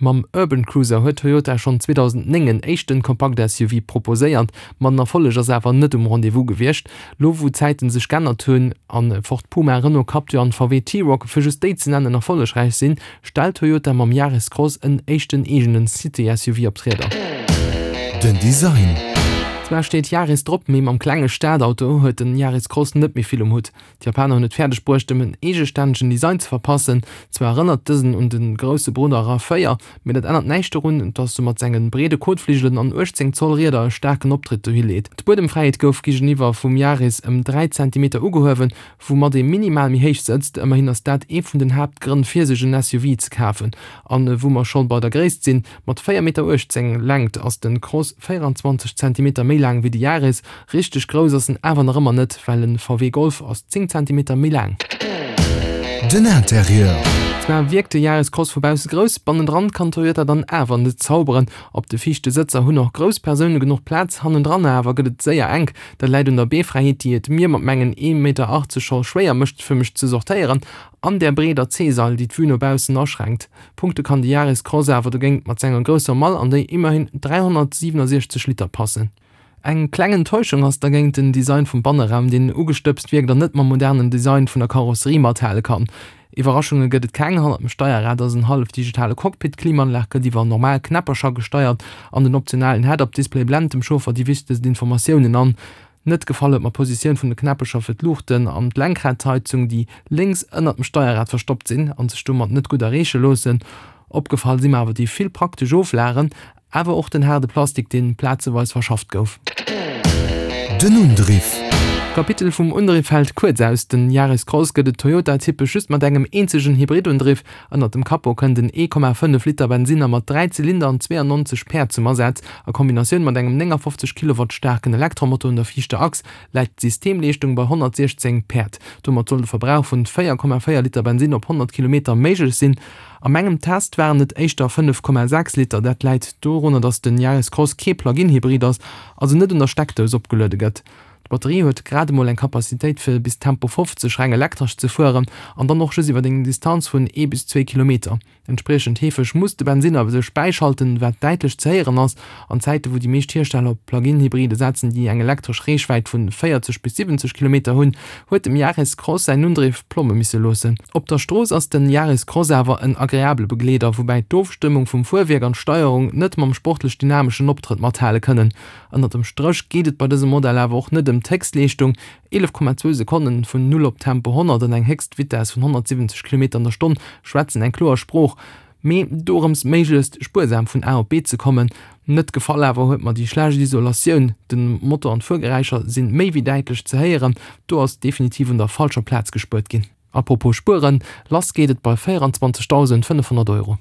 Mam Urban Cruiser huet Toyota schonn 2009 en éischten Kompakt-SUV proposéiert, ma den Erfolleg ass awer net um Rendez-vous gewiescht. Lo wou d'Zäiten sech g'ännert hunn an Ford Puma, Renault Captur an VW T-Roc, fir just déi ze nennen, erfollegräich sinn, stellt Toyota mam Yaris Cross en éischten eegenen City-SUV op d'Rieder. Den Design. Zwar steet Yaris drop, mee mam klenge Stadauto huet den Yaris Cross net méi vill um Hutt. D'Japaner hunn et fäerdeg bruecht em en eegestännegen Design ze verpassen. Zwar erënnert dësen un de grousse Brudder Rav 4, mee dat ännert näischt dorun, dass e mat senge breede Kotfligelen an 18 Zoll Rieder e staarken Optritt dohi leet. D'Buedemfräiheet gouf géigeniwwer vum Yaris ëm 3 Zentimeter ugehuewen, woumat ee minimal méi héich sëtzt. Ëmmerhin ass dat ee vun den Haaptgrënn fir sech en SUV ze kafen. An wou mer scho bei der Gréisst sinn, Mat 4 Meter 18 Längt ass den Cross 24 Zentimeter méi laang wéi de Yaris. Richteg grouss ass en awer nach ëmmer net, well en VW Golf ass 10 Zentimeter méi laang. Den Interieur. Zwar wierkt de Yaris Cross vu bausse grouss, bannendran kann Toyota dann awer net zauberen. Op de viischte Sëtzer hunn och grouss Persoune genuch Plaz, hannendran awer gëtt et séier enk. Dat läit un der Beefräiheet, déi et mir mat mengen 1,80 Meter scho schwéier mécht fir mech ze sortéieren, an där breeder C-Sail, déi d'Vue no baussen aschränkt. Punkte kann de Yaris Cross awer dogéint mat senger grousser Mall, an déi immerhin 367 Liter passen. Eng kleng Enttäuschung ass dergéint den Design vum Banneraum, deen ugestëbst wierkt an net mam modernen Design vun der Karosserie mathale kann. Iwwerraschunge gëtt et keng, hannert dem Steierrad ass en hallef digitale Cockpit, d'Klimaanlag gëtt iwwer normal Knäppercher gesteiert an den optionalen Head-Up-Display blent dem Chauffer déi wichtegst Informatiounen an. Net gefall huet mer d'Positioun vun de Knäppecher fir d'Luuchten an d'Lenkradheizung, déi lénks ënnert dem Steierrad verstoppt sinn an sech domat net gutt erreeche loossen. Opgefall si mer awer déi vill praktesch Oflagen, awer och den haarde Plastik, deen plazeweis verschafft gouf. Den Undriff. D'Kapitel vum Undriff fält kuerz aus. Den Yaris Cross gëtt et Toyota-typesch just mat engem eenzegen Hybridundriff. Ënnert dem Capot kënnt en 1,5 Liter Bensinner mat 3 Zylinder an 92 Päerd zum Asaz. A Kombinatioun mat engem 59 Kilowatt staarken Elektromotor un der viischter Achs läit d'Systemleeschtung bei 116 Päerd. Domat soll de Verbrauch vun 4,4 Liter Bensinn op 100 Kilometer méiglech sinn. A mengem Test waren et éischter 5,6 Liter. Dat läit dorunner, datt den Yaris Cross kee Plug-in-Hybrid ass, also net un der Steckdous opgeluede gëtt. D'Batterie huet grad emol eng Kapazitéit fir bis Tempo 50 reng elektresch ze fueren an dann och just iwwer eng Distanz vun ee bis zwee Kilometer. Entspriechend heefeg muss de Bensinner sech bäischalten, wat däitlech ze héieren ass. An Zäite wou déi meescht Hiersteller op Plug-in-Hybride setzen, déi eng elektresch Reechwäit vun 40 bis 70 Kilometer hunn, huet dem Yaris Cross säin Undriff Plomme misse loossen. Op der Strooss ass den Yaris Cross awer en agreabele Begleeder, woubäi d'Ofstëmmung vum Fuerwierk an d'Steierung net mam sportlech dynameschen Optrëtt mathale kënnen. Ënnert dem Stréch geet et bei dësem Modell awer och net ëm d'Héchstleeschtung, 11,2 Sekonnen vun Null op Tempo 100 an eng Héchstvitess vun 170 Kilometer an der Stonn schwätzen eng kloer Sprooch, mee dorëms méiglechst spuersam vun A op B ze kommen. Net gefall awer huet mer déi schlecht Isolatioun, den Motor an d'Fuergeräischer sinn méi wéi däitlech ze héieren, do ass definitiv un der falscher Plaz gespuert ginn. Apropos spueren, lass geet et bei 24.500 Euro.